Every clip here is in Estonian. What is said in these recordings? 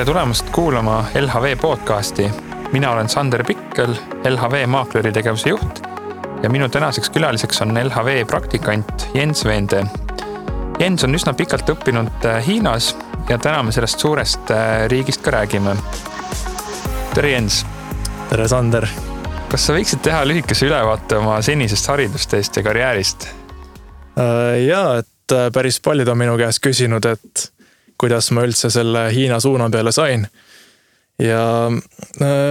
Tere tulemast kuulama LHV podcasti. Mina olen Sander Pikkel, LHV maakleri tegevuse juht ja minu tänaseks külaliseks on LHV praktikant Jens Veende. Jens on üsna pikalt õppinud Hiinas ja täna me sellest suurest riigist ka räägime. Tere Jens! Tere Sander! Kas sa võiksid teha lühikese ülevaate oma senisest haridustest ja karjäärist? Jaa, et päris paljud on minu käest küsinud, et kuidas ma üldse selle Hiina suuna peale sain. Ja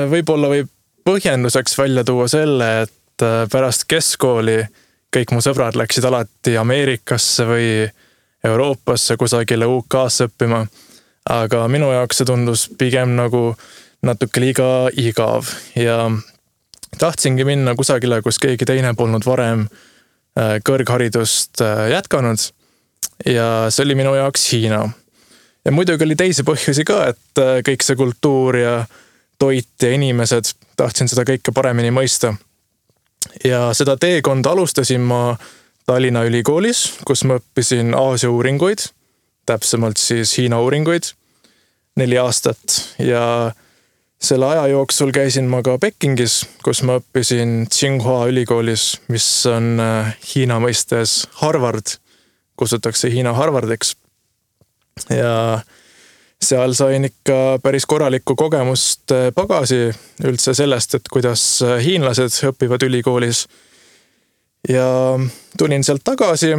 võib-olla võib põhjenduseks välja tuua selle, et pärast keskkooli kõik mu sõbrad läksid alati Ameerikasse või Euroopasse kusagile UK-sse õppima. Aga minu jaoks see tundus pigem nagu natuke liiga igav ja tahtsingi minna kusagile, kus keegi teine polnud varem kõrgharidust jätkanud ja see oli minu jaoks Hiina. Ja muidugi oli teisi põhjusi ka, et kõik see kultuur ja toit ja inimesed, tahtsin seda kõike paremini mõista. Ja seda teekonda alustasin ma Tallinna ülikoolis, kus ma õppisin Aasia uuringuid, täpsemalt siis Hiina uuringuid 4 aastat ja selle aja jooksul käisin ma ka Pekingis, kus ma õppisin Tsinghua ülikoolis, mis on Hiina mõistes Harvard, kutsutakse Hiina Harvardiks. Ja seal sain ikka päris korralikku kogemust pagasi üldse sellest, et kuidas hiinlased õpivad ülikoolis. Ja tulin sealt tagasi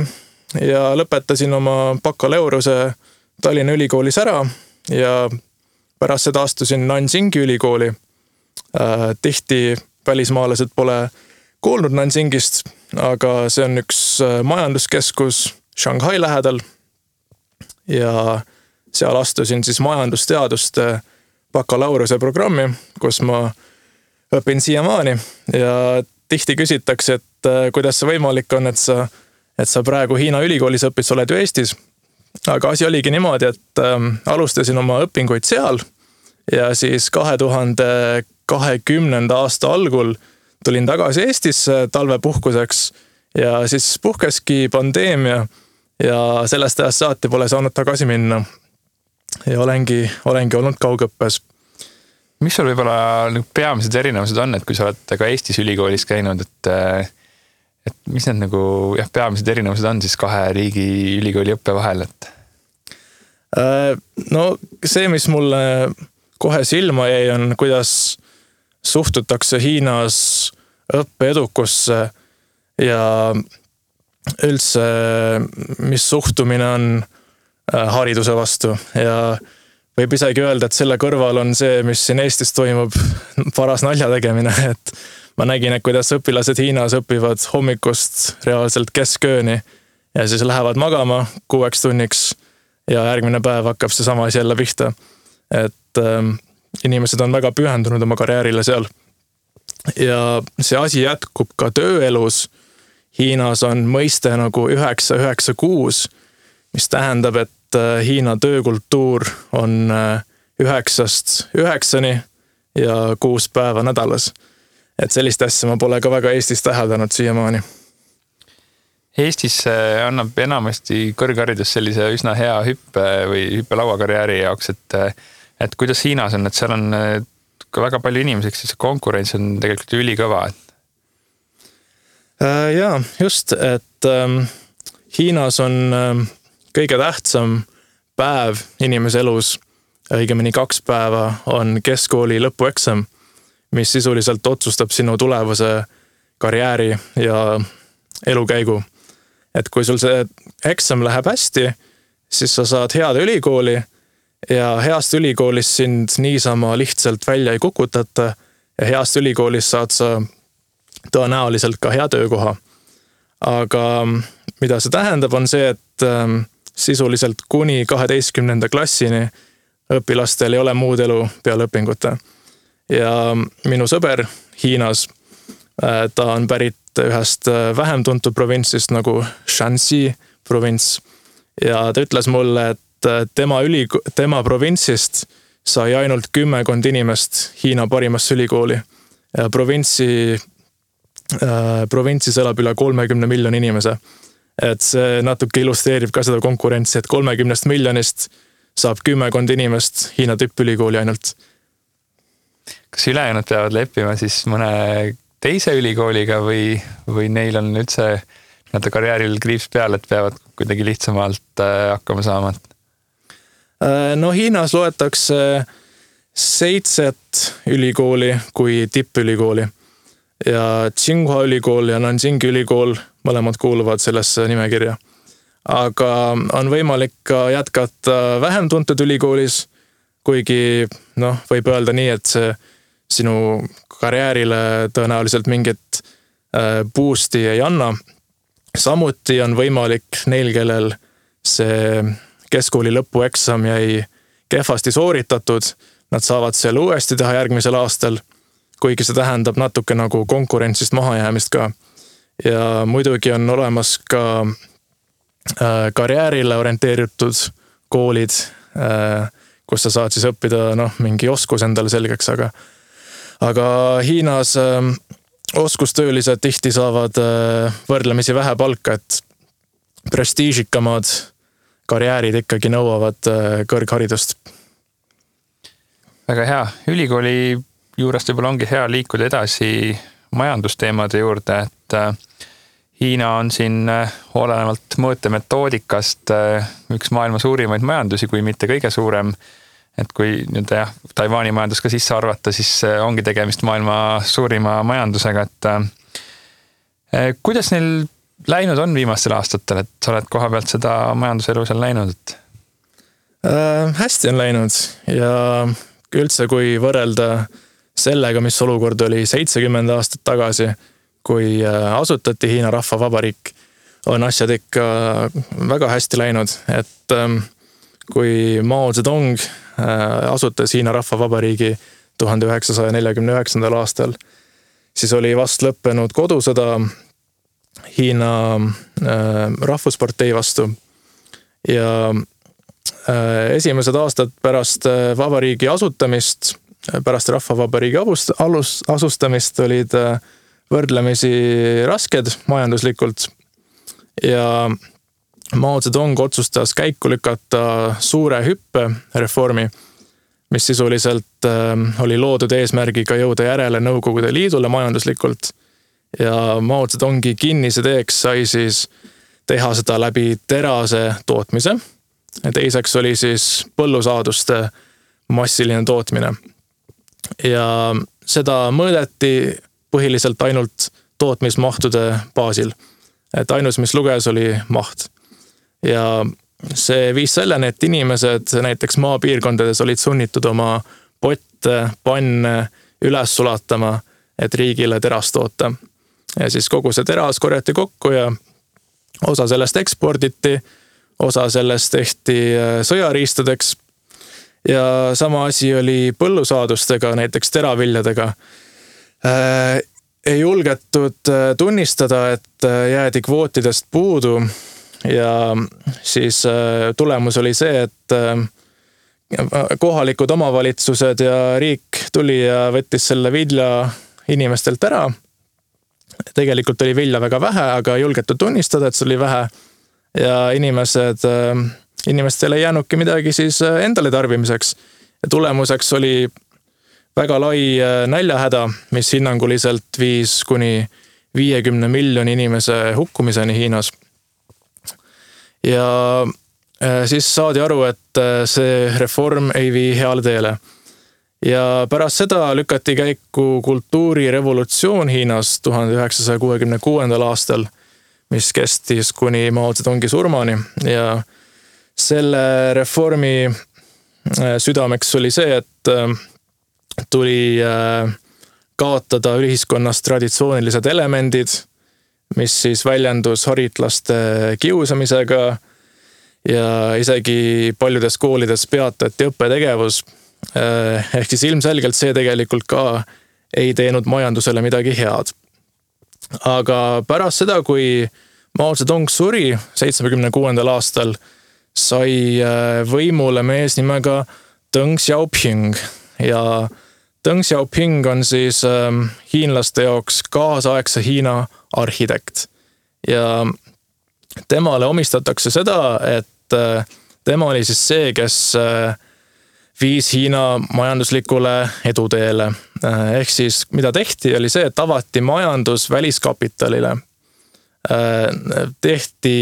ja lõpetasin oma bakaleureuse Tallinna ülikoolis ära ja pärast seda astusin Nanjingi ülikooli. Tihti välismaalased pole kuulnud Nanjingist, aga see on üks majanduskeskus Shanghai lähedal ja seal astusin siis majandusteaduste bakalaureuse programmi, kus ma õpin siiamaani ja tihti küsitakse, et kuidas see võimalik on, et sa praegu Hiina ülikoolis õpid, sa oled ju Eestis. Aga asi oligi niimoodi, et alustasin oma õpinguid seal ja siis 2020. aasta algul tulin tagasi Eestisse talvepuhkuseks ja siis puhkeski pandeemia ja sellest ajast saati pole saanud tagasi minna. Ja olengi olnud kaugõppes. Mis sul võib-olla peamised erinevused on, et kui sa oled ka Eestis ülikoolis käinud, et mis need peamised erinevused on siis 2 riigi ülikooli õppe vahel? No see, mis mulle kohe silma jäi, on kuidas suhtutakse Hiinas õppeedukusse ja üldse, mis suhtumine on hariduse vastu ja võib isegi öelda, et selle kõrval on see, mis siin Eestis toimub, paras nalja tegemine, et ma nägin, et kuidas õpilased Hiinas õpivad hommikust reaalselt keskööni ja siis lähevad magama 6 tunniks ja järgmine päev hakkab see sama asi jälle pihta. Et inimesed on väga pühendunud oma karjäärile seal. Ja see asi jätkub ka tööelus. Hiinas on mõiste nagu 9-9-6, mis tähendab, et Hiina töökultuur on 9-9 ja 6 päeva nädalas. Et sellist asja ma pole ka väga Eestis täheldanud siiamaani. Eestis annab enamasti kõrgharidus sellise üsna hea hüppe või hüppelauakarjääri jaoks, et kuidas Hiinas on, et seal on ka väga palju inimeseks, siis konkurents on tegelikult ülikõva. Jaa, just, et Hiinas on kõige tähtsam päev inimese elus, õigemini 2 päeva on keskkooli lõpueksam, mis sisuliselt otsustab sinu tulevase karjääri ja elukäigu. Et kui sul see eksam läheb hästi, siis sa saad head ülikooli ja heast ülikoolis sind niisama lihtsalt välja ei kukutata ja heast ülikoolis saad sa tõenäoliselt ka hea töökoha. Aga mida see tähendab on see, et sisuliselt kuni 12. klassini õpilastel ei ole muud elu peale õpingute. Ja minu sõber Hiinas, ta on pärit ühest vähem tuntud provintsist nagu Shanxi provints ja ta ütles mulle, et tema provintsist sai ainult 10 inimest Hiina parimasse ülikooli ja provintsis elab üle 30 miljoni inimese. Et see natuke illustreerib ka seda konkurentsi, et 30 miljonist saab 10 inimest Hiina tippülikooli ainult. Kas ülejäänud peavad leppima siis mõne teise ülikooliga või neil on üldse karjääril kriips peal, et peavad kuidagi lihtsamalt hakkama saama? No Hiinas loetakse 7 ülikooli kui tippülikooli ja Tsinghua ülikool ja Nanjingi ülikool mõlemad kuuluvad sellesse nimekirja. Aga on võimalik ka jätkata vähem tuntud ülikoolis, kuigi võib öelda nii, et see sinu karjäärile tõenäoliselt mingit boost'i ei anna. Samuti on võimalik neil, kellel see keskkooli lõpueksam jäi kehvasti sooritatud, nad saavad seal uuesti teha järgmisel aastal, kuigi see tähendab natuke nagu konkurentsist mahajäämist ka. Ja muidugi on olemas ka karjäärile orienteeritud koolid, kus sa saad siis õppida mingi oskus endale selgeks, aga Hiinas oskustöölised tihti saavad võrdlemisi vähe palka, et prestiižikamad karjäärid ikkagi nõuavad kõrgharidust. Väga hea. Ülikooli juurest võib-olla ongi hea liikuda edasi majandusteemade juurde, et Hiina on siin olenevalt mõõtemetoodikast üks maailma suurimaid majandusi, kui mitte kõige suurem. Et kui Taiwani majandus ka sisse arvata, siis ongi tegemist maailma suurima majandusega. Et kuidas neil läinud on viimastel aastatel, et sa oled koha pealt seda majanduselu seal näinud? Hästi on läinud ja üldse kui võrrelda sellega, mis olukord oli 70 aastat tagasi, kui asutati Hiina Rahvavabariik, on asjad ikka väga hästi läinud, et kui Mao Zedong asutas Hiina Rahvavabariigi 1949. aastal, siis oli vast lõppenud kodusõda Hiina rahvuspartei vastu ja esimesed aastad pärast vabariigi asutamist, pärast Rahvavabariigi asustamist olid võrdlemisi rasked majanduslikult ja Mao Zedong otsustas käiku lükata suure hüppe reformi, mis sisuliselt oli loodud eesmärgiga jõuda järele Nõukogude Liidule majanduslikult ja Mao Zedongi kinniseteeks sai siis teha seda läbi terase tootmise. Teiseks oli siis põllusaaduste massiline tootmine ja seda mõõdeti põhiliselt ainult tootmismahtude baasil. Et ainus, mis luges, oli maht. Ja see viis selleni, et inimesed näiteks maapiirkondades olid sunnitud oma potte, panne üles sulatama, et riigile terast toota. Ja siis kogu see teras korjati kokku ja osa sellest eksporditi, osa sellest tehti sõjariistadeks ja sama asi oli põllusaadustega, näiteks teraviljadega. Ei julgetud tunnistada, et jäädi kvootidest puudu ja siis tulemus oli see, et kohalikud omavalitsused ja riik tuli ja võttis selle vilja inimestelt ära. Tegelikult oli vilja väga vähe, aga ei julgetud tunnistada, et see oli vähe ja inimestel ei jäänudki midagi siis endale tarbimiseks ja tulemuseks oli väga lai näljahäda, mis hinnanguliselt viis kuni 50 miljoni inimese hukkumiseni Hiinas. Ja siis saadi aru, et see reform ei vii heale teele. Ja pärast seda lükati käiku kultuurirevolutsioon Hiinas 1966. aastal, mis kestis kuni Mao Zedongi surmani ja selle reformi südameks oli see, et tuli kaotada ühiskonnas traditsioonilised elemendid, mis siis väljendus haritlaste kiusamisega ja isegi paljudes koolides peatati õppetegevus. Ehk siis ilmselgelt see tegelikult ka ei teinud majandusele midagi head. Aga pärast seda, kui Mao Zedong suri 76. aastal, sai võimule mees nimega Deng Xiaoping ja Deng Xiaoping on siis hiinlaste jaoks kaasaegse Hiina arhitekt ja temale omistatakse seda, et tema oli siis see, kes viis Hiina majanduslikule eduteele. Ehk siis mida tehti, oli see, et avati majandus väliskapitalile. Tehti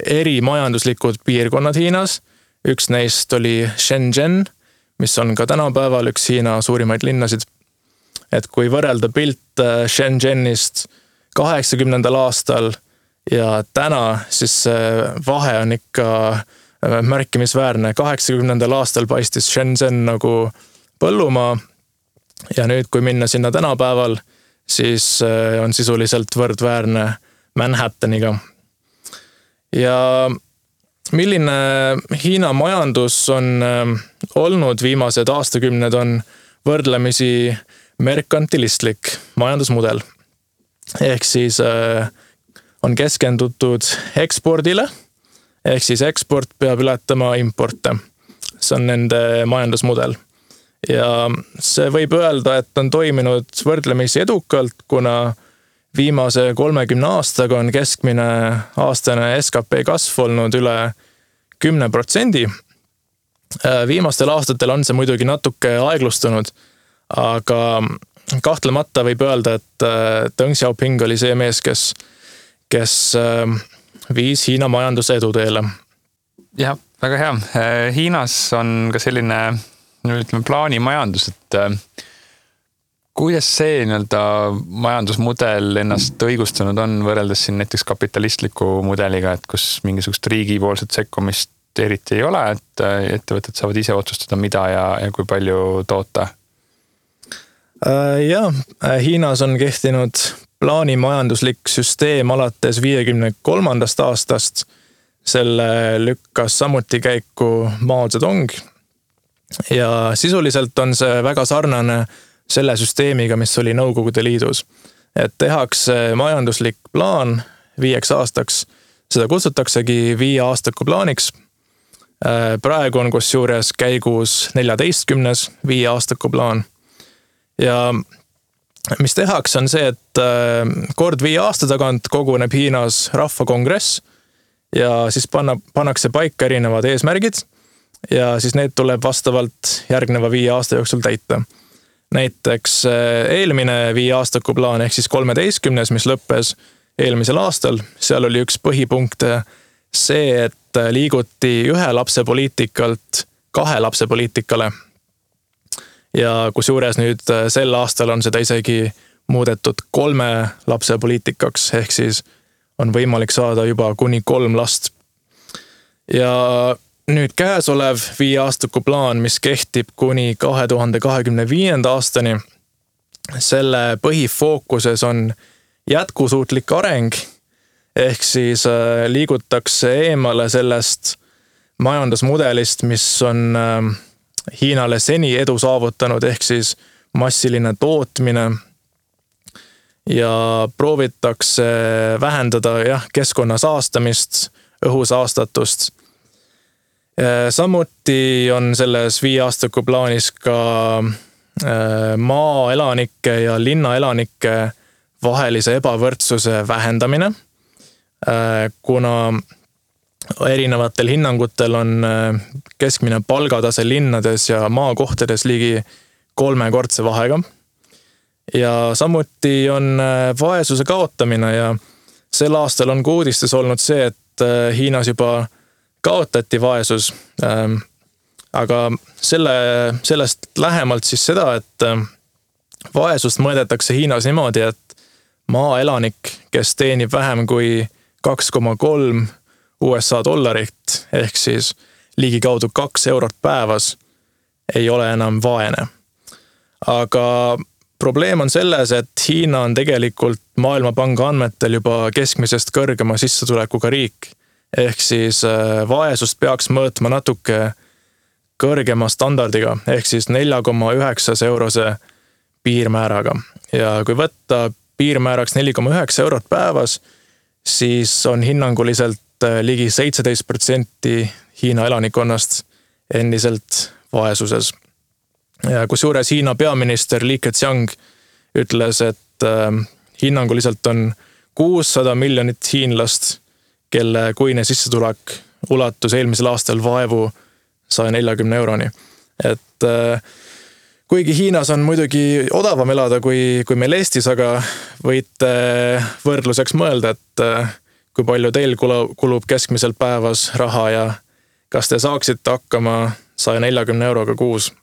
eri majanduslikud piirkonnad Hiinas. Üks neist oli Shenzhen, mis on ka tänapäeval üks Hiina suurimaid linnasid. Et kui võrrelda pilt Shenzhenist 80. aastal ja täna, siis vahe on ikka märkimisväärne. 80. aastal paistis Shenzhen nagu põllumaa ja nüüd, kui minna sinna tänapäeval, siis on sisuliselt võrdväärne Manhattaniga. Ja milline Hiina majandus on olnud viimased aastakümned on võrdlemisi merkantilistlik majandusmudel. Ehk siis on keskendutud ekspordile, ehk siis eksport peab ületama importe. See on nende majandusmudel. Ja see võib öelda, et on toiminud võrdlemisi edukalt, kuna viimase 30 aastaga on keskmine aastane SKP kasv olnud üle 10%. Viimastel aastatel on see muidugi natuke aeglustunud, aga kahtlemata võib öelda, et Deng Xiaoping oli see mees, kes viis Hiina majanduse eduteele. Jah, väga hea. Hiinas on ka selline plaanimajandus, et kuidas see majandusmudel ennast õigustunud on võrreldes siin näiteks kapitalistliku mudeliga, et kus mingisugust riigipoolset sekkumist eriti ei ole, et ettevõtted saavad ise otsustada, mida ja kui palju toota? Jah, Hiinas on kehtinud plaanimajanduslik süsteem alates 53. aastast. Selle lükkas samuti käiku Mao Zedong. Ja sisuliselt on see väga sarnane selle süsteemiga, mis oli Nõukogude Liidus. Et tehakse majanduslik plaan 5 aastaks. Seda kutsutaksegi 5 aastaku plaaniks. Praegu on kusjuures käigus 14. 5 aastaku plaan. Ja mis tehakse on see, et kord 5 aasta tagant koguneb Hiinas rahvakongress ja siis pannakse paika erinevad eesmärgid ja siis need tuleb vastavalt järgneva 5 aasta jooksul täita. Näiteks eelmine 5 aastaku plaan ehk siis 13, mis lõppes eelmisel aastal, seal oli üks põhipunkt see, et liiguti 1 lapse poliitikalt 2 lapse poliitikale. Ja kusjuures nüüd sel aastal on seda isegi muudetud 3 lapse poliitikaks, ehk siis on võimalik saada juba kuni 3 last. Ja nüüd käesolev 5 aastaku plaan, mis kehtib kuni 2025. aastani, selle põhifookuses on jätkusuutlik areng, ehk siis liigutakse eemale sellest majandusmudelist, mis on Hiinale seni edu saavutanud, ehk siis massiline tootmine ja proovitakse vähendada keskkonna saastamist, õhusaastatust. Samuti on selles 5 aastaku plaanis ka maaelanike ja linnaelanike vahelise ebavõrdsuse vähendamine, kuna erinevatel hinnangutel on keskmine palgatase linnades ja maakohtades ligi 3-kordse vahega. Ja samuti on vaesuse kaotamine ja sel aastal on uudistes olnud see, et Hiinas juba kaotati vaesus. Aga sellest lähemalt siis seda, et vaesust mõõdetakse Hiinas niimoodi, et maaelanik, kes teenib vähem kui 2,3 USA dollarit, ehk siis ligikaudu 2 eurot päevas, ei ole enam vaene. Aga probleem on selles, et Hiina on tegelikult Maailmapanga andmetel juba keskmisest kõrgema sissetulekuga riik. Ehk siis vaesust peaks mõõtma natuke kõrgema standardiga, ehk siis 4,9 eurose piirmääraga. Ja kui võtta piirmääraks 4,9 eurot päevas, siis on hinnanguliselt ligi 17% Hiina elanikkonnast endiselt vaesuses. Ja kusjuures Hiina peaminister Li Keqiang ütles, et hinnanguliselt on 600 miljonit hiinlast, kelle kuine sissetulek ulatus eelmisel aastal vaevu 140 euroni. Et kuigi Hiinas on muidugi odavam elada kui meil Eestis, aga võite võrdluseks mõelda, et kui palju teil kulub keskmiselt päevas raha ja kas te saaksite hakkama 140 euroga kuus?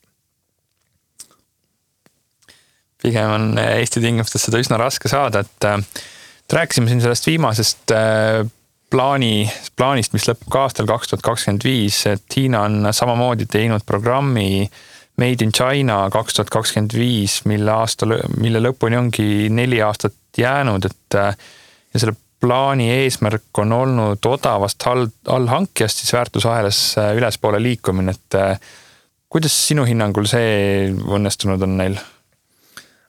Pigem on Eesti tingimustes seda üsna raske saada, et rääkisime siin sellest viimasest plaanist, mis lõpeb ka aastal 2025, et Hiina on samamoodi teinud programmi Made in China 2025, mille lõpuni ongi 4 aastat jäänud, et ja selle plaani eesmärk on olnud odavast allhankijast siis väärtusahelas ülespoole liikumine, et kuidas sinu hinnangul see õnnestunud on neil?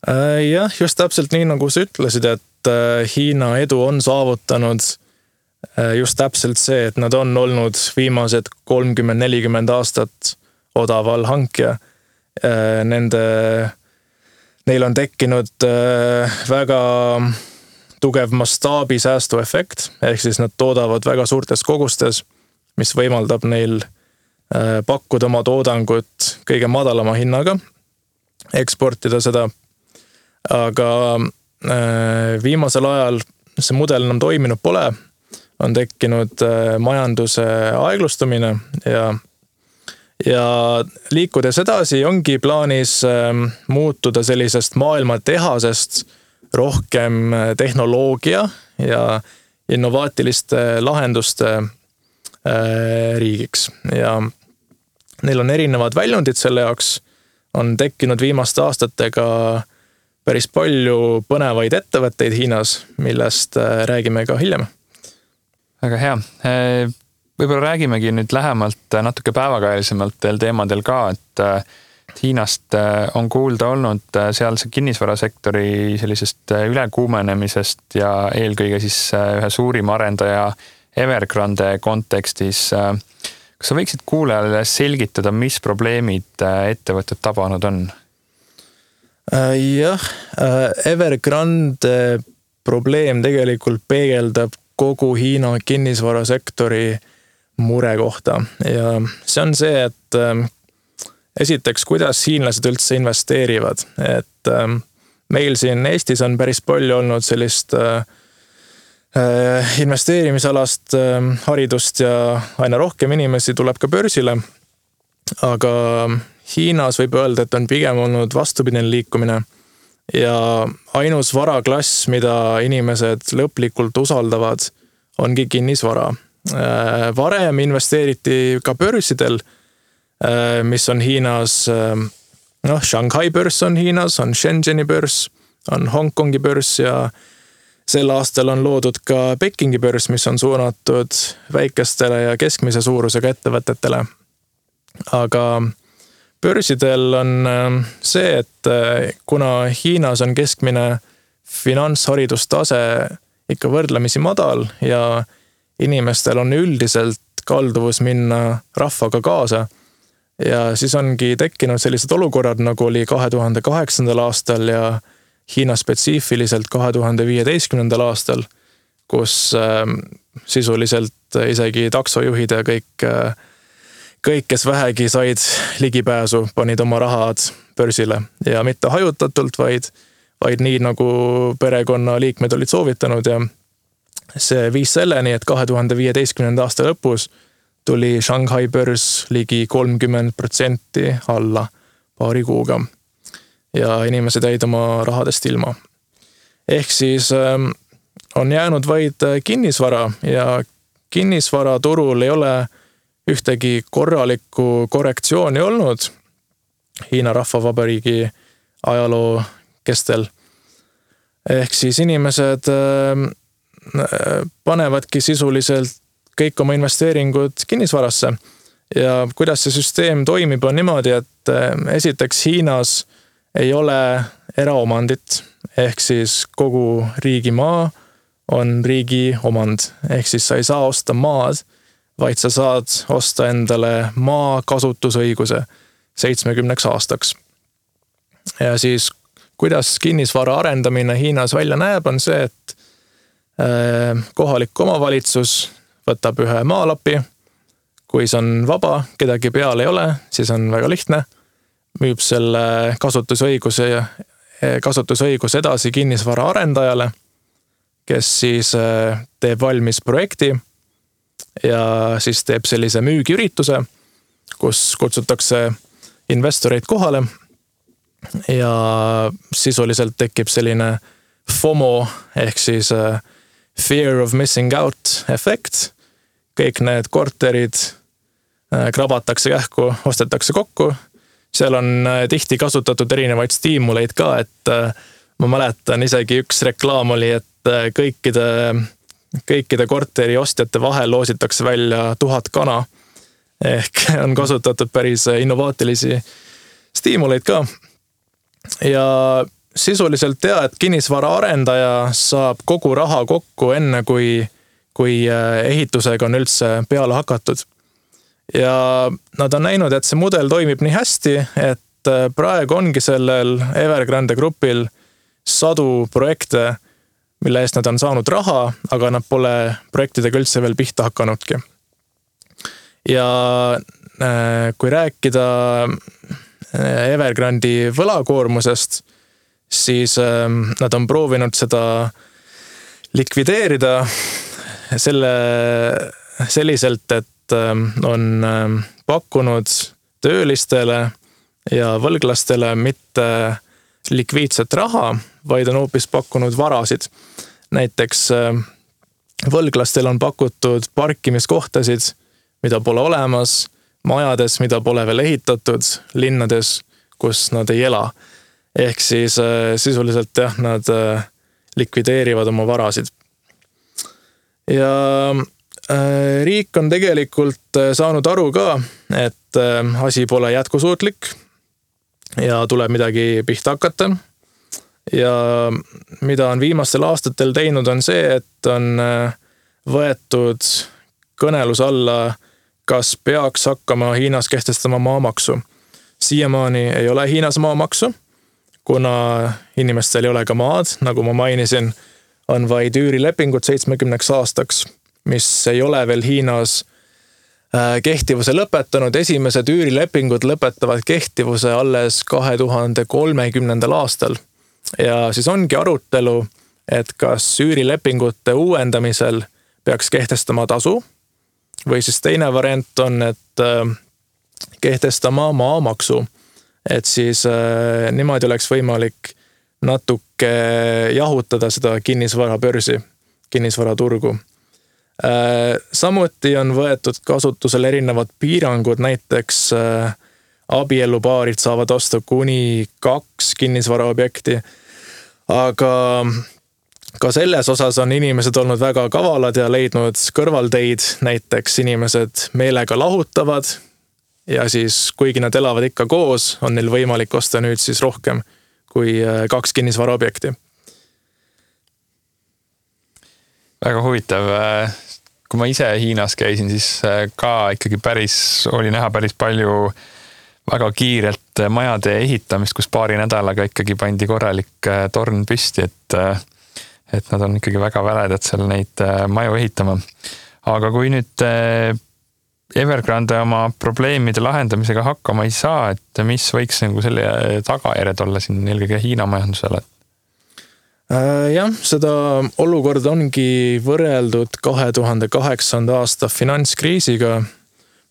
Jah, just täpselt nii, nagu sa ütlesid, et Hiina edu on saavutanud just täpselt see, et nad on olnud viimased 30-40 aastat odav allhankija. Neil on tekkinud väga tugev mastaabi säästuefekt, ehk siis nad toodavad väga suurtes kogustes, mis võimaldab neil pakkuda oma toodangut kõige madalama hinnaga, eksportida seda. Aga viimasel ajal see mudel enam toiminud pole, on tekkinud majanduse aeglustumine ja liikudes edasi ongi plaanis muutuda sellisest maailma tehasest rohkem tehnoloogia ja innovaatiliste lahenduste riigiks. Ja neil on erinevad väljundid selle jaoks, on tekkinud viimaste aastatega päris palju põnevaid ettevõtteid Hiinas, millest räägime ka hiljem. Väga hea. Võib-olla räägimegi nüüd lähemalt natuke päevakajalisemalt teil teemadel ka, et Hiinast on kuulda olnud sealse kinnisvarasektori sellisest ülekuumenemisest ja eelkõige siis ühe suurima arendaja Evergrande kontekstis. Kas sa võiksid kuulajale selgitada, mis probleemid ettevõtted tabanud on? Jah, Evergrande probleem tegelikult peegeldab kogu Hiina kinnisvarasektori mure kohta ja see on see, et esiteks, kuidas hiinlased üldse investeerivad, et meil siin Eestis on päris palju olnud sellist investeerimisalast haridust ja aina rohkem inimesi tuleb ka börsile, aga Hiinas võib öelda, et on pigem olnud vastupidine liikumine ja ainus varaklass, mida inimesed lõplikult usaldavad, ongi kinnisvara. Varem investeeriti ka börsidel, mis on Hiinas, Shanghai börs on Hiinas, on Shenzheni börs, on Hongkongi börs ja sel aastal on loodud ka Pekingi börs, mis on suunatud väikestele ja keskmise suurusega ettevõtetele. Aga börsidel on see, et kuna Hiinas on keskmine finantsharidustase ikka võrdlemisi madal ja inimestel on üldiselt kalduvus minna rahvaga kaasa ja siis ongi tekkinud sellised olukorrad, nagu oli 2008. aastal ja Hiina spetsiifiliselt 2015. aastal, kus sisuliselt isegi taksojuhid ja kõik, kes vähegi said ligipääsu, panid oma rahad börsile ja mitte hajutatult, vaid nii, nagu perekonna liikmed olid soovitanud ja see viis selleni, et 2015. aasta lõpus tuli Shanghai börs ligi 30% alla paari kuuga ja inimesed jäid oma rahadest ilma. Ehk siis on jäänud vaid kinnisvara ja kinnisvaraturul ei ole ühtegi korralikku korrektsiooni olnud Hiina Rahvavabariigi ajaloo kestel. Ehk siis inimesed panevadki sisuliselt kõik oma investeeringud kinnisvarasse. Ja kuidas see süsteem toimib, on niimoodi, et esiteks Hiinas ei ole eraomandit, ehk siis kogu riigimaa on riigi omand. Ehk siis sa ei saa osta maad, vaid sa saad osta endale maa kasutusõiguse 70 aastaks. Ja siis, kuidas kinnisvara arendamine Hiinas välja näeb, on see, et kohalik omavalitsus võtab ühe maalapi, kui see on vaba, kedagi peal ei ole, siis on väga lihtne. Müüb selle kasutusõiguse edasi kinnisvara arendajale, kes siis teeb valmis projekti ja siis teeb sellise müügiürituse, kus kutsutakse investoreid kohale ja sisuliselt tekib selline FOMO ehk siis fear of missing out efekt. Kõik need korterid krabatakse kähku, ostetakse kokku. Seal on tihti kasutatud erinevaid stiimuleid ka, et ma mäletan isegi üks reklaam oli, et kõikide korteri ostjate vahel loositakse välja 1000 kana. Ehk on kasutatud päris innovaatilisi stiimuleid ka. Ja sisuliselt et kinnisvara arendaja saab kogu raha kokku enne, kui ehitusega on üldse peale hakatud. Ja nad on näinud, et see mudel toimib nii hästi, et praegu ongi sellel Evergrande grupil 100 projekte, mille eest nad on saanud raha, aga nad pole projektidega üldse veel pihta hakanudki. Ja kui rääkida Evergrandi võlakoormusest, siis nad on proovinud seda likvideerida selliselt, et on pakkunud töölistele ja võlglastele mitte likviidset raha, vaid on hoopis pakkunud varasid. Näiteks võlglastel on pakutud parkimiskohtasid, mida pole olemas, majades, mida pole veel ehitatud, linnades, kus nad ei ela. Ehk siis sisuliselt nad likvideerivad oma varasid. Ja riik on tegelikult saanud aru ka, et asi pole jätkusuutlik ja tuleb midagi pihta hakata. Ja mida on viimastel aastatel teinud on see, et on võetud kõnelus alla, kas peaks hakkama Hiinas kehtestama maamaksu. Siiamaani ei ole Hiinas maamaksu, kuna inimestel ei ole ka maad, nagu ma mainisin, on vaid üürilepingud 70 aastaks, mis ei ole veel Hiinas kehtivuse lõpetanud. Esimesed üürilepingud lõpetavad kehtivuse alles 2030. aastal. Ja siis ongi arutelu, et kas üürilepingute uuendamisel peaks kehtestama tasu, või siis teine variant on, et kehtestama maamaksu, et siis niimoodi oleks võimalik natuke jahutada seda kinnisvarabörsi, kinnisvaraturgu. Samuti on võetud kasutusel erinevad piirangud, näiteks abielupaarid saavad osta kuni 2 kinnisvaraobjekti, aga ka selles osas on inimesed olnud väga kavalad ja leidnud kõrvalteid, näiteks inimesed meelega lahutavad ja siis kuigi nad elavad ikka koos, on neil võimalik osta nüüd siis rohkem kui 2 kinnisvaraobjekti. Väga huvitav. Kui ma ise Hiinas käisin, siis ka ikkagi oli näha päris palju väga kiirelt majade ehitamist, kus paari nädalaga ikkagi pandi korralik torn püsti, et nad on ikkagi väga väledad seal neid maju ehitama. Aga kui nüüd Evergrande oma probleemide lahendamisega hakkama ei saa, et mis võiks selle tagajärjed olla siin eelkõige Hiina majandusele? Jah, seda olukorda ongi võrreldud 2008. aasta finantskriisiga,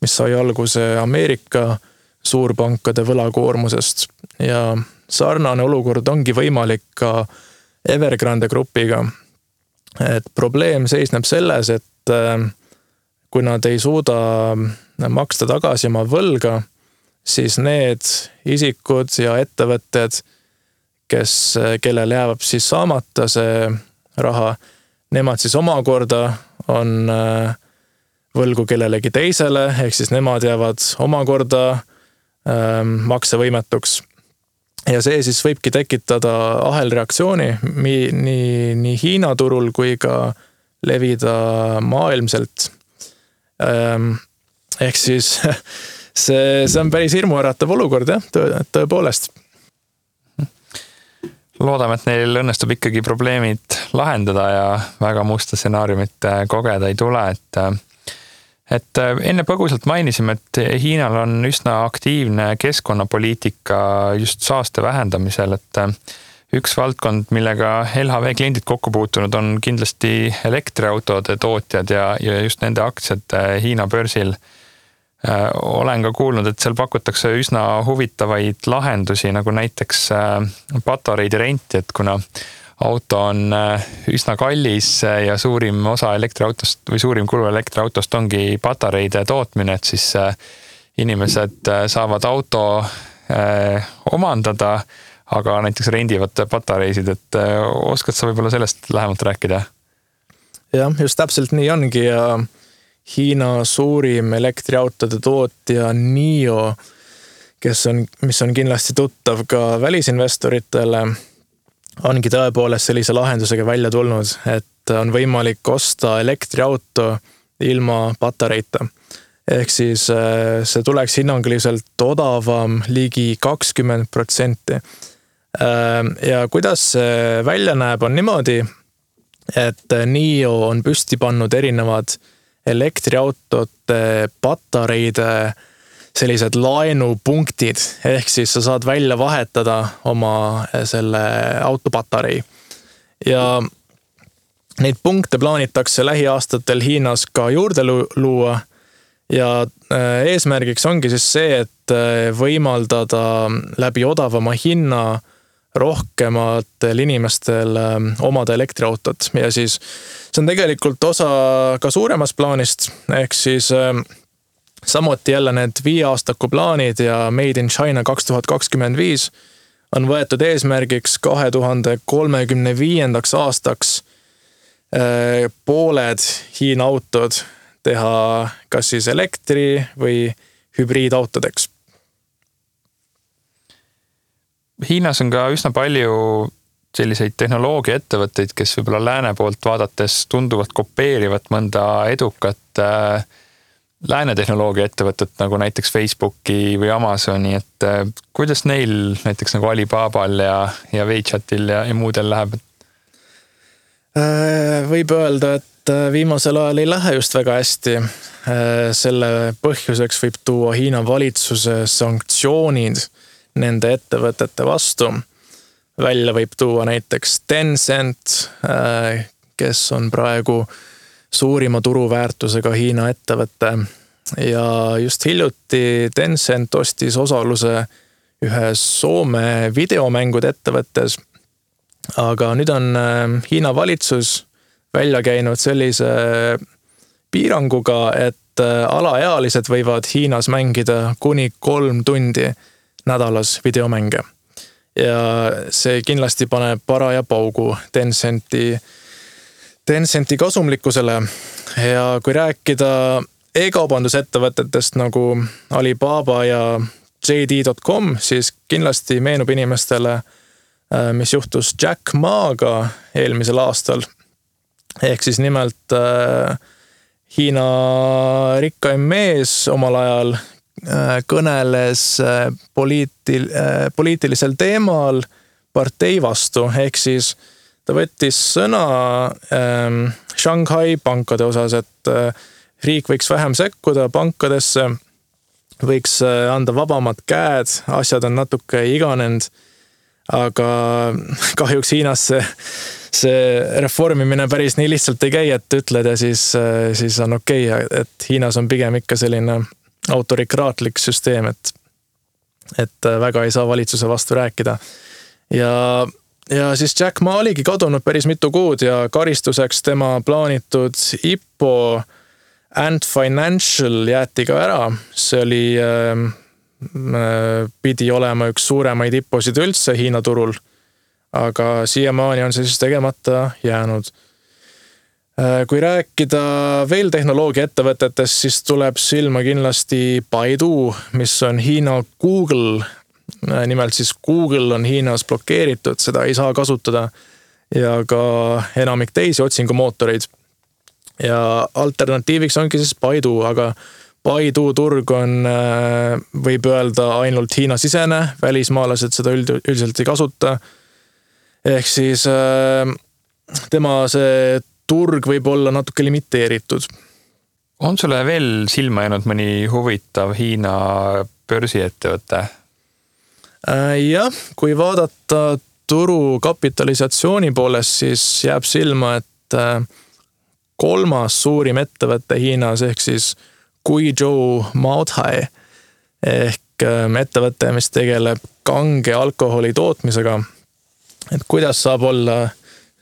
mis sai alguse Ameerika suurpankade võlakoormusest. Ja sarnane olukord ongi võimalik ka Evergrande grupiga. Et probleem seisneb selles, et kui nad ei suuda maksta tagasi oma võlga, siis need isikud ja ettevõtted, kellel jääb siis saamata see raha, nemad siis omakorda on võlgu kellelegi teisele, ehk siis nemad jäävad omakorda maksevõimetuks. Ja see siis võibki tekitada ahelreaktsiooni nii Hiina turul kui ka levida maailmselt. Ehk siis see on päris hirmuäratav olukord, tõepoolest. Loodame, et neil õnnestub ikkagi probleemid lahendada ja väga musta stsenaariumit kogeda ei tule, et et enne põgusalt mainisime, et Hiinal on üsna aktiivne keskkonnapoliitika just saaste vähendamisel, et üks valdkond, millega LHV kliendid kokku puutunud on kindlasti elektriautode tootjad ja just nende aktsiad Hiina börsil. Olen ka kuulnud, et seal pakutakse üsna huvitavaid lahendusi, nagu näiteks patareide renti, et kuna auto on üsna kallis ja suurim osa elektriautost või suurim kulu elektriautost ongi patareide tootmine, et siis inimesed saavad auto omandada, aga näiteks rendivad patareisid, et oskad sa võib-olla sellest lähemalt rääkida? Jah, just täpselt nii ongi ja Hiina suurim elektriautode tootja NIO, mis on kindlasti tuttav ka välisinvestoritele, ongi tõepoolest sellise lahendusega välja tulnud, et on võimalik osta elektriauto ilma patareita. Ehk siis see tuleks hinnanguliselt odavam ligi 20%. Ja kuidas see välja näeb on niimoodi, et NIO on püsti pannud erinevad elektriautote patareide sellised laenupunktid, ehk siis sa saad välja vahetada oma selle autopatarei. Ja neid punkte plaanitakse lähiaastatel Hiinas ka juurde luua ja eesmärgiks ongi siis see, et võimaldada läbi odavama hinna rohkematel inimestel omada elektriautot ja siis see on tegelikult osa ka suuremast plaanist, ehk siis samuti jälle need 5-aastaku plaanid ja Made in China 2025 on võetud eesmärgiks 2035. aastaks pooled Hiina autod teha kas siis elektri- või hübriidautodeks. Hiinas on ka üsna palju selliseid tehnoloogiaettevõtteid, kes võib-olla lääne poolt vaadates tunduvad kopeerivat mõnda edukat lääne tehnoloogiaettevõtet, nagu näiteks Facebooki või Amazoni, et kuidas neil näiteks nagu Alibabal ja WeChatil ja muudel läheb? Võib öelda, et viimasel ajal ei lähe just väga hästi. Selle põhjuseks võib tuua Hiina valitsuse sanktsioonid nende ettevõtete vastu. Välja võib tuua näiteks Tencent, kes on praegu suurima turuväärtusega Hiina ettevõte. Ja just hiljuti Tencent ostis osaluse ühes Soome videomängude ettevõttes. Aga nüüd on Hiina valitsus välja käinud sellise piiranguga, et alaealised võivad Hiinas mängida kuni 3 tundi nädalas videomänge. Ja see kindlasti paneb paraja paugu Tencenti kasumlikkusele. Ja kui rääkida e-kaubandusettevõtetest nagu Alibaba ja JD.com, siis kindlasti meenub inimestele, mis juhtus Jack Maaga eelmisel aastal. Ehk siis nimelt Hiina rikkaim mees omal ajal kõneles poliitilisel teemal partei vastu, ehk siis ta võttis sõna Shanghai pankade osas, et riik võiks vähem sekkuda pankadesse, võiks anda vabamad käed, asjad on natuke iganenud, aga kahjuks Hiinas see reformimine päris nii lihtsalt ei käi, et ütled ja siis on okei, et Hiinas on pigem ikka selline autorikraatlik süsteem, et väga ei saa valitsuse vastu rääkida. Ja siis Jack Ma oligi kadunud päris mitu kuud ja karistuseks tema plaanitud IPO Ant Financial jäeti ka ära. See oli, pidi olema üks suuremaid IPO-sid üldse Hiina turul, aga siiamaani on see siis tegemata jäänud. Kui rääkida veel tehnoloogiaettevõtetest, siis tuleb silma kindlasti Baidu, mis on Hiina Google. Nimelt siis Google on Hiinas blokeeritud, seda ei saa kasutada ja ka enamik teisi otsingumootoreid. Ja alternatiiviks ongi siis Baidu, aga Baidu turg on, võib öelda, ainult Hiina sisene, välismaalased seda üldiselt ei kasuta. Ehk siis tema see turg võib olla natuke limiteeritud. On sulle veel silma jäänud mõni huvitav Hiina börsiettevõte? Jah, kui vaadata turu kapitalisatsiooni poolest, siis jääb silma, et 3. suurim ettevõte Hiinas ehk siis Guizhou Maotai ehk ettevõte, mis tegeleb kange alkoholi tootmisega. Et kuidas saab olla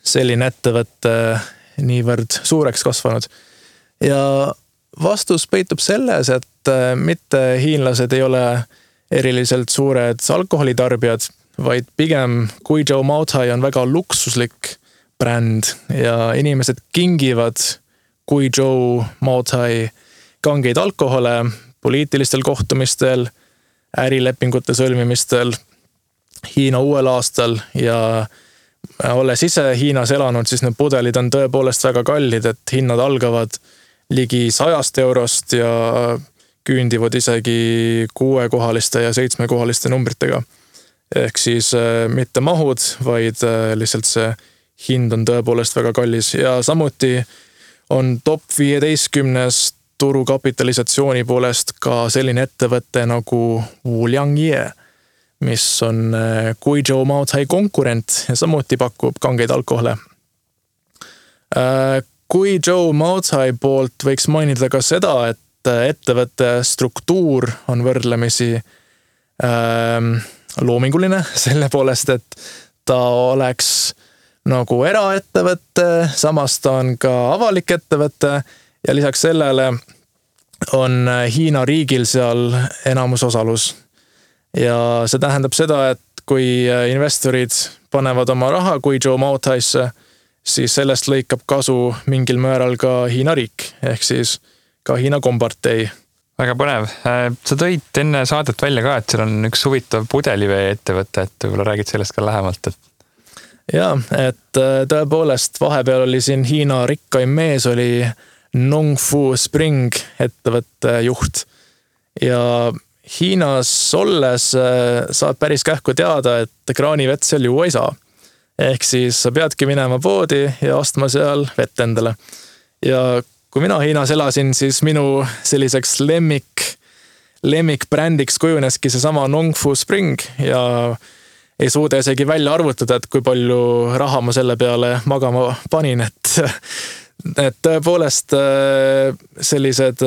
selline ettevõte niivõrd suureks kasvanud? Ja vastus peitub selles, et mitte hiinlased ei ole eriliselt suured alkoholitarbijad, vaid pigem Guizhou Maotai on väga luksuslik bränd ja inimesed kingivad Guizhou Maotai kangeid alkohole poliitilistel kohtumistel, ärilepingute sõlmimistel, Hiina uuel aastal ja olles ise Hiinas elanud, siis need pudelid on tõepoolest väga kallid, et hinnad algavad ligi 100 eurost ja küündivad isegi 6-kohaliste ja 7-kohaliste numbritega. Ehk siis mitte mahud, vaid lihtsalt see hind on tõepoolest väga kallis ja samuti on top 15 turu kapitalisatsiooni poolest ka selline ettevõte nagu Wuliangye, mis on Guizhou Maotai konkurent ja samuti pakub kangeid alkohole. Guizhou Maotai poolt võiks mainida ka seda, et ettevõtte struktuur on võrdlemisi loominguline selle poolest, et ta oleks nagu eraettevõte, samas ta on ka avalik ettevõte ja lisaks sellele on Hiina riigil seal enamusosalus. Ja see tähendab seda, et kui investorid panevad oma raha Guizhou Maotaisse, siis sellest lõikab kasu mingil määral ka Hiina riik, ehk siis ka Hiina kompartei. Väga põnev. Sa tõid enne saadet välja ka, et seal on üks huvitav pudelivee ettevõte, et võib-olla räägid sellest ka lähemalt. Jaa, et tõepoolest vahepeal oli siin Hiina rikkaim mees, oli Nongfu Spring ettevõtte juht. Ja Hiinas olles saad päris kähku teada, et kraanivett seal juua ei saa. Ehk siis sa peadki minema poodi ja ostma seal vett endale. Ja kui mina Hiinas elasin, siis minu selliseks lemmikbrändiks kujuneski see sama Nongfu Spring ja ei suuda isegi välja arvutada, et kui palju raha ma selle peale magama panin, et tõepoolest sellised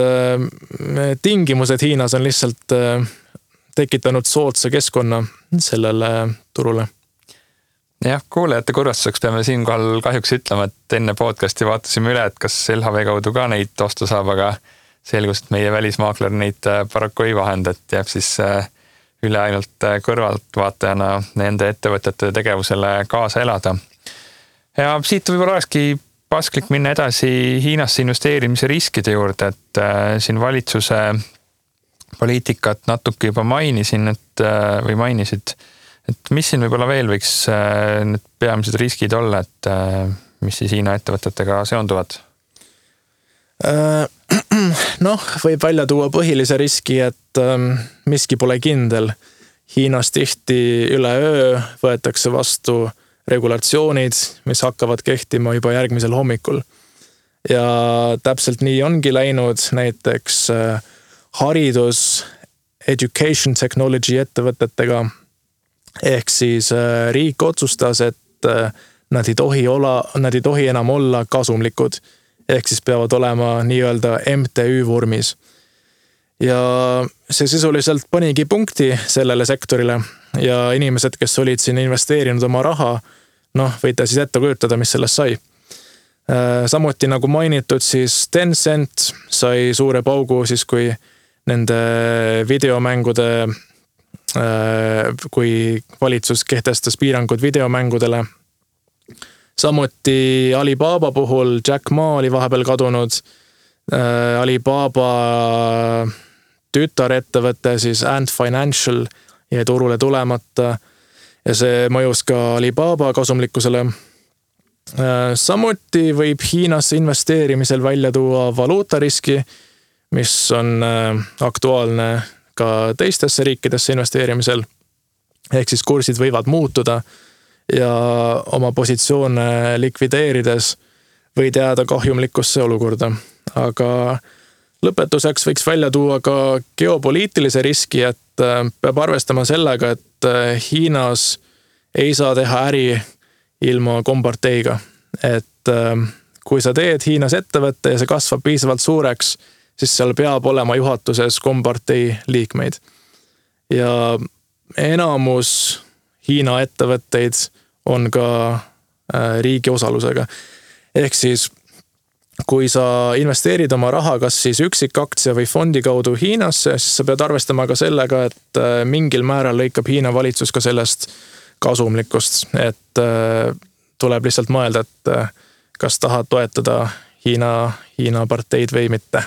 tingimused Hiinas on lihtsalt tekitanud soodsa keskkonna sellele turule. Jah, kuulajate kurvastuseks peame siinkohal kahjuks ütlema, et enne podcasti vaatasime üle, et kas LHV kaudu ka neid osta saab, aga selgus, et meie välismaakler neid paraku ei vahenda, et jääb siis üle ainult kõrvaltvaatajana nende ettevõtete tegevusele kaasa elada. Ja siit võib-olla olekski pasklik minna edasi Hiinasse investeerimise riskide juurde, et siin valitsuse poliitikat natuke juba mainisid, et mis siin võib-olla veel võiks need peamised riskid olla, et mis siis Hiina ettevõtetega seonduvad? Võib välja tuua põhilise riski, et miski pole kindel. Hiinas tihti üle öö võetakse vastu regulatsioonid, mis hakkavad kehtima juba järgmisel hommikul. Ja täpselt nii ongi läinud näiteks haridus, education technology ettevõtetega. Ehk siis riik otsustas, et nad ei tohi enam olla kasumlikud. Ehk siis peavad olema nii-öelda MTÜ vormis. Ja see sisuliselt panigi punkti sellele sektorile ja inimesed, kes olid siin investeerinud oma raha, võite siis ette kujutada, mis sellest sai. Samuti nagu mainitud, siis Tencent sai suure paugu siis, kui nende videomängude kui valitsus kehtestas piirangud videomängudele. Samuti Alibaba puhul Jack Ma oli vahepeal kadunud. Alibaba tütarettevõte, siis Ant Financial jäi turule tulemata ja see mõjus ka Alibaba kasumlikkusele. Samuti võib Hiinasse investeerimisel välja tuua valuutariski, mis on aktuaalne ka teistesse riikidesse investeerimisel. Ehk siis kursid võivad muutuda ja oma positsioone likvideerides võid jääda kahjumlikkusse olukorda. Aga lõpetuseks võiks välja tuua ka geopoliitilise riski, et peab arvestama sellega, et Hiinas ei saa teha äri ilma komparteiga. Et kui sa teed Hiinas ettevõtte ja see kasvab piisavalt suureks, siis seal peab olema juhatuses kompartei liikmeid. Ja enamus Hiina ettevõtteid on ka riigi osalusega. Ehk siis, kui sa investeerid oma raha kas siis üksikaktsia või fondi kaudu Hiinasse, siis sa pead arvestama ka sellega, et mingil määral lõikab Hiina valitsus ka sellest kasumlikkust. Et tuleb lihtsalt mõelda, et kas tahad toetada Hiina parteid või mitte.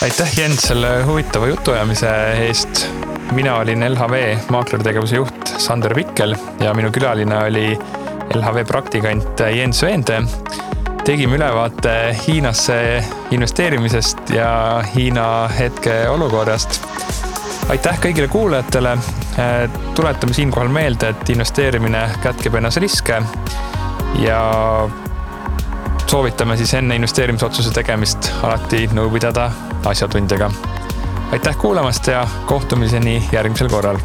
Aitäh, Jens, selle huvitava jutuajamise eest. Mina olin LHV maakleritegevuse juht Sander Pikkel ja minu külaline oli LHV praktikant Jens Veende. Tegime ülevaate Hiinasse investeerimisest ja Hiina hetke olukorrast. Aitäh kõigile kuulajatele. Tuletame siinkohal meelde, et investeerimine kätkeb ennas riske ja soovitame siis enne investeerimisotsuse tegemist alati nõu pidada asjatundjaga. Aitäh kuulamast ja kohtumiseni järgmisel korral.